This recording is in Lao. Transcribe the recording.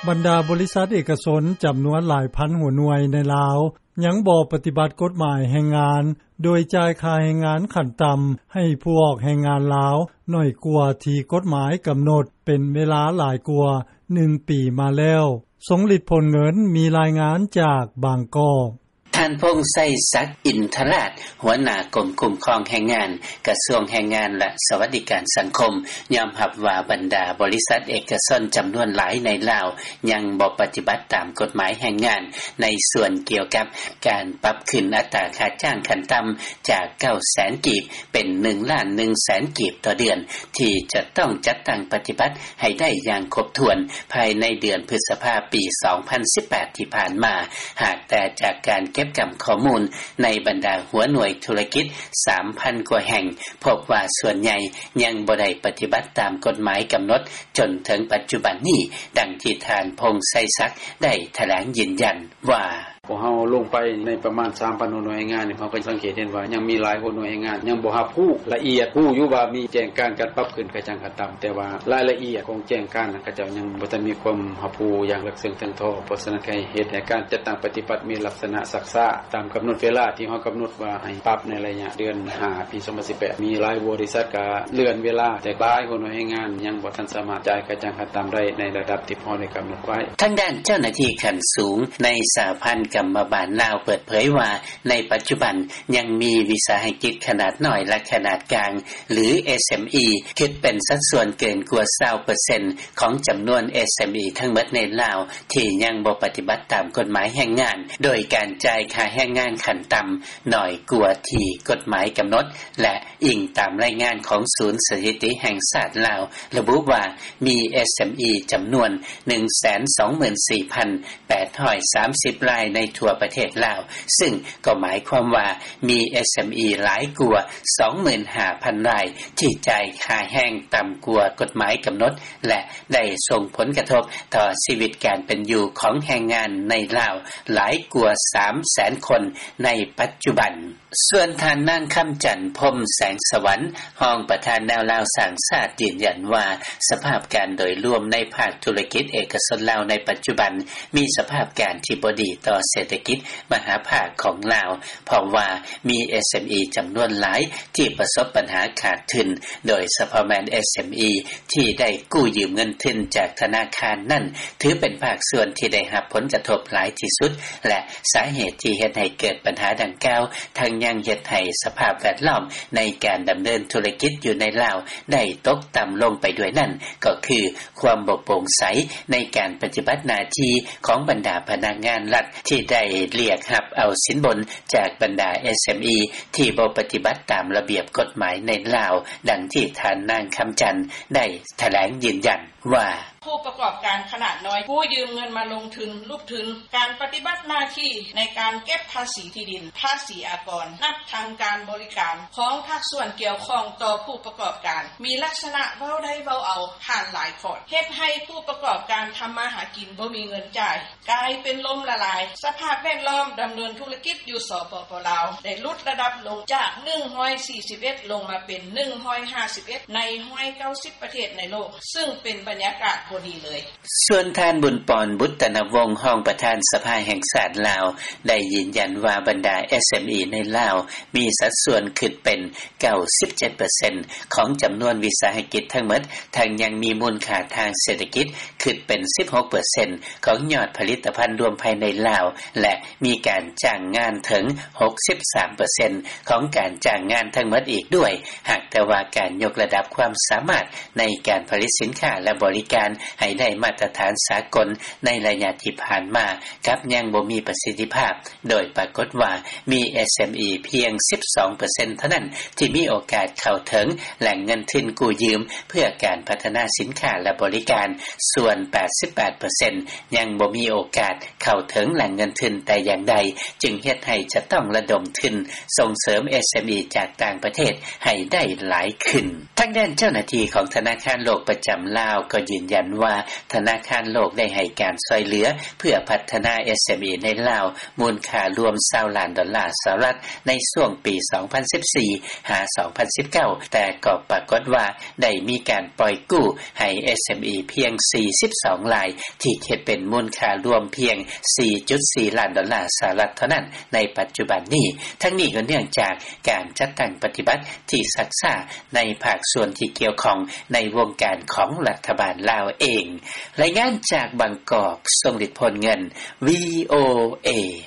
ບັນດາບໍລິສັດເອກະຊົນຈຳນວນຫຼາຍພັນຫົວໜ່ວຍໃນລາວ ຍັງບໍ່ປະຕິບັດກົດໝາຍແຮງງານ ໂດຍຈ່າຍຄ່າແຮງງານຂັ້ນຕ່ຳໃຫ້ຜູ້ອອກແຮງງານລາວ ໜ້ອຍກວ່າທີ່ກົດໝາຍກຳນົດ ເປັນເວລາຫຼາຍກວ່າໜຶ່ງປີມາແລ້ວ. ສົງລິດ ພົນເງິນ ມີລາຍງານຈາກບາງກອກ. ທ່ານ ພົງໄຊສັກ ອິນທະລາດ ຫົວໜ້າກົມຄຸ້ມຄອງແຮງງານ ກະຊວງແຮງງານ ແລະ ສະຫວັດດີການສັງຄົມ ຍອມຮັບວ່າບັນດາບໍລິສັດເອກະຊົນຈຳນວນຫຼາຍໃນລາວ ຍັງບໍ່ປະຕິບັດຕາມກົດໝາຍແຮງງານ ໃນສ່ວນກ່ຽວກັບການປັບຂຶ້ນອັດຕາຄ່າຈ້າງຂັ້ນຕ່ຳ ຈາກ ເກົ້າແສນ ກີບ ເປັນ ໜຶ່ງລ້ານໜຶ່ງແສນ ກີບຕໍ່ເດືອນ ທີ່ຈະຕ້ອງຈັດຕັ້ງປະຕິບັດໃຫ້ໄດ້ຢ່າງຄົບຖ້ວນ ພາຍໃນເດືອນພຶດສະພາ ປີສອງພັນສິບແປດ ທີ່ຜ່ານມາ. ຫາກແຕ່ຈາກການເກັບກຳຂໍ້ມູນໃນບັນດາຫົວໜ່ວຍທຸລະກິດ ສາມພັນ ກວ່າແຫ່ງ ພົບວ່າສ່ວນໃຫຍ່ຍັງບໍ່ໄດ້ປະຕິບັດຕາມກົດໝາຍກຳນົດ ຈົນເຖິງປັດຈຸບັນນີ້, ດັ່ງທີ່ທ່ານ ພົງໄຊສັກ ໄດ້ຖະແຫຼງຢືນຢັນວ່າ: ພວກເຮົາລົງໄປໃນປະມານ ສາມພັນ ຫົວໜ່ວຍແຮງງານນີ້ ເຮົາກໍສັງເກດເຫັນວ່າຍັງມີຫຼາຍຫົວໜ່ວຍແຮງງານຍັງບໍ່ຮັບຮູ້ລະອຽດ, ຮູ້ຢູ່ວ່າມີແຈ້ງການການປັບຂຶ້ນຄ່າຈ້າງຂັ້ນຕ່ຳ ແຕ່ວ່າລາຍລະອຽດຂອງແຈ້ງການນັ້ນ ເຂົາເຈົ້າຍັງບໍ່ທັນມີຄວາມຮັບຮູ້ຢ່າງເລິກເຊິ່ງເຖິງທໍ່. ເພາະສະນັ້ນ ເຮັດໃຫ້ການຈັດຕັ້ງປະຕິບັດມີລັກສະນະຊັກຊ້າ ຕາມກຳນົດເວລາທີ່ເຮົາກຳນົດວ່າໃຫ້ປັບໃນໄລຍະເດືອນຫ້າ ປີສອງພັນສິບແປດ ມີຫຼາຍບໍລິສັດກໍເລື່ອນເວລາ, ແຕ່ຫຼາຍຫົວໜ່ວຍແຮງງານຍັງບໍ່ທັນສາມາດຈ່າຍຄ່າຈ້າງຂັ້ນຕ່ຳໄດ້ໃນລະດັບທີ່ພວກເຮົາໄດ້ກຳນົດໄວ້. ທາງດ້ານເຈົ້າໜ້າທີ່ຂັ້ນສູງໃນສະຫະພັນກຳມະບານລາວເປີດເຜີຍວ່າ ໃນປັດຈຸບັນຍັງມີວິສາຫະກິດຂະໜາດນ້ອຍ ແລະ ຂະໜາດກາງ ຫຼື ເອສເອັມອີ ຄິດເປັນສັດສ່ວນເກີນກວ່າ ຊາວເປີເຊັນ ຂອງຈຳນວນ ເອສເອັມອີ ທັງໝົດໃນລາວ ທີ່ຍັງບໍ່ປະຕິບັດຕາມກົດໝາຍແຮງງານ ໂດຍການຈ່າຍຄ່າແຮງງານຂັ້ນຕ່ຳໜ້ອຍກວ່າທີ່ກົດໝາຍກຳນົດ ແລະ ອີງຕາມລາຍງານຂອງສູນສະຖິຕິແຫ່ງຊາດລາວ ລະບຸວ່າມີ ເອສເອັມອີ ຈຳນວນ ໜຶ່ງແສນສອງໝື່ນສີ່ພັນແປດຮ້ອຍສາມສິບລາຍໃນທົ່ວປະເທດລາວ, ຊຶ່ງກໍໝາຍຄວາມວ່າມີ ເອສເອັມອີ ຫຼາຍກວ່າ ສອງໝື່ນຫ້າພັນລາຍ ທີ່ຈ່າຍຄ່າແຮງຕ່ຳກວ່າກົດໝາຍກຳນົດ ແລະ ໄດ້ສົ່ງຜົນກະທົບຕໍ່ຊີວິດການເປັນຢູ່ຂອງແຮງງານໃນລາວຫຼາຍກວ່າ ສາມແສນຄົນໃນປັດຈຸບັນ. ສ່ວນທ່ານນາງ ຄຳຈັນ ພົມແສງສະຫວັນ ຮອງປະທານແນວລາວສ້າງຊາດ ຢືນຢັນວ່າ ສະພາບການໂດຍລວມໃນພາກທຸລະກິດເອກະຊົນລາວໃນປັດຈຸບັນ ມີສະພາບການທີ່ບໍ່ດີຕໍ່ເສດຖະກິດມະຫາພາກຂອງລາວ, ເພາະວ່າມີ ເອສເອັມອີ ຈຳນວນຫຼາຍທີ່ປະສົບບັນຫາຂາດທຶນ, ໂດຍສະເພາະແມ່ນ ເອສເອັມອີ ທີ່ໄດ້ກູ້ຢືມເງິນທຶນຈາກທະນາຄານນັ້ນ ຖືເປັນພາກສ່ວນທີ່ໄດ້ຮັບຜົນກະທົບຫຼາຍທີ່ສຸດ ແລະ ສາເຫດທີ່ເຮັດໃຫ້ເກີດບັນຫາດັ່ງກ່າວ ທັງຍັງເຮັດໃຫ້ສະພາບແວດລ້ອມໃນການດຳເນີນທຸລະກິດຢູ່ໃນລາວໄດ້ຕົກຕ່ຳລົງໄປດ້ວຍນັ້ນ ກໍຄືຄວາມບໍ່ໂປ່ງໃສໃນການປະຕິບັດໜ້າທີ່ຂອງບັນດາພະນັກງານລັດ ທີ່ໄດ້ລຽກຮັບເອົາສິນບົນຈາກບັນດາ ເອສເອັມອີ ທີ່ບໍ່ປະຕິບັດຕາມລະບຽບກົດໝາຍໃນລາວ, ດັ່ງທີ່ທ່ານນາງ ຄຳຈັນ ໄດ້ຖະແຫຼງຢືນຢັນວ່າ: ຜູ້ປະກອບການຂະໜາດນ້ອຍ ກູ້ຢືມເງິນມາລົງທຶນ ຫຼຸບທຶນ ການປະຕິບັດໜ້າທີ່ໃນການເກັບພາສີທີ່ດິນ, ພາສີອາກອນ, ນັບທັງການບໍລິການຂອງພາກສ່ວນກ່ຽວຂ້ອງຕໍ່ຜູ້ປະກອບການ ມີລັກສະນະເວົ້າໄດ້ເວົ້າເອົາ ຜ່ານຫຼາຍຂອດ ເຮັດໃຫ້ຜູ້ປະກອບການທຳມາຫາກິນບໍ່ມີເງິນຈ່າຍ ກາຍເປັນລົ້ມລະລາຍ, ສະພາບແວດລ້ອມດຳເນີນທຸລະກິດຢູ່ ສປປ ລາວ ໄດ້ຫຼຸດລະດັບລົງຈາກ ໜຶ່ງຮ້ອຍສີ່ສິບເອັດ ລົງມາເປັນ ໜຶ່ງຮ້ອຍຫ້າສິບເອັດ ໃນ ໜຶ່ງຮ້ອຍເກົ້າສິບ ປະເທດໃນໂລກ, ຊຶ່ງເປັນບັນຍາກາດບໍ່ດີເລີຍ. ສ່ວນທ່ານ ບຸນປອນ ບຸດຕະນະວົງ ຮອງປະທານສະພາແຫ່ງຊາດລາວ ໄດ້ຢືນຢັນວ່າບັນດາ ເອສເອັມອີ ໃນລາວ ມີສັດສ່ວນຄິດເປັນ ເກົ້າສິບເຈັດເປີເຊັນ ຂອງຈຳນວນວິສາຫະກິດທັງໝົດ, ທັງຍັງມີມູນຄ່າທາງເສດຖະກິດຄິດເປັນ ສິບຫົກເປີເຊັນ ຂອງຍອດຜະລິດຕະພັນລວມພາຍໃນລາວ ແລະ ມີການຈ້າງງານເຖິງ ຫົກສິບສາມເປີເຊັນ ຂອງການຈ້າງງານທັງໝົດອີກດ້ວຍ, ຫາກແຕ່ວ່າການຍົກລະດັບຄວາມສາມາດໃນການຜະລິດສິນຄ້າ ແລະ ບໍລິການໃຫ້ໄດ້ມາດຕະຖານສາກົນໃນໄລຍະທີ່ຜ່ານມາ ກັບຍັງບໍ່ມີປະສິດທິພາບ. ໂດຍປາກົດວ່າມີ ເອສເອັມອີ ພຽງ ສິບສອງເປີເຊັນ ເທົ່ານັ້ນທີ່ມີໂອກາດເຂົ້າເຖິງແຫຼ່ງເງິນທຶນກູ້ຢືມເພື່ອການພັດທະນາສິນຄ້າ ແລະ ບໍລິການ, ສ່ວນ ແປດສິບແປດເປີເຊັນ ຍັງບໍ່ມີໂອກາດເຂົ້າເຖິງແຫຼ່ງເງິນທຶນແຕ່ຢ່າງໃດ, ຈຶ່ງເຮັດໃຫ້ຈະຕ້ອງລະດົມທຶນສົ່ງເສີມ ເອສເອັມອີ ຈາກຕ່າງປະເທດໃຫ້ໄດ້ຫຼາຍຂຶ້ນ. ທ ທາງດ້ານເຈົ້າໜ້າທີ່ ຂອງທະນາຄານໂລກ ປະຈຳລາວ ກໍຢືນຢັນວ່າ ທະນາຄານໂລກ ໄດ້ໃຫ້ການຊ່ອຍເຫຼືອ ເພື່ອພັດທະນາ SME ໃນລາວ ມູນຄ່າລວມ 20 ລ້ານດອນລ່າ ສະຫະລັດ ໃນຊ່ວງປີ 2014-2019 ແຕ່ກໍປາກົດວ່າ ໄດ້ມີການປ່ອຍກູ້ ໃຫ້ SME ພຽງ 42 ລາຍ ທີ່ຄິດເປັນມູນຄ່າລວມ ພຽງ 4.4 ລ້ານດອນລ່າ ສະຫະລັດ ເທົ່ານັ້ນ ໃນປັດຈຸບັນນີ້. ທັງນີ້ກໍເນື່ອງຈາກ ການຈັດຕັ້ງປະຕິບັດ ທີ່ຊັກຊ້າ ໃນພາກສ່ວນທີ່ກ່ຽວຂ້ອງ ໃນວົງການຂອງລັດຖະບານລາວເອງ. ລາຍງານຈາກບາງກອກ ຊົງລິດ ໂພນເງິນ VOA.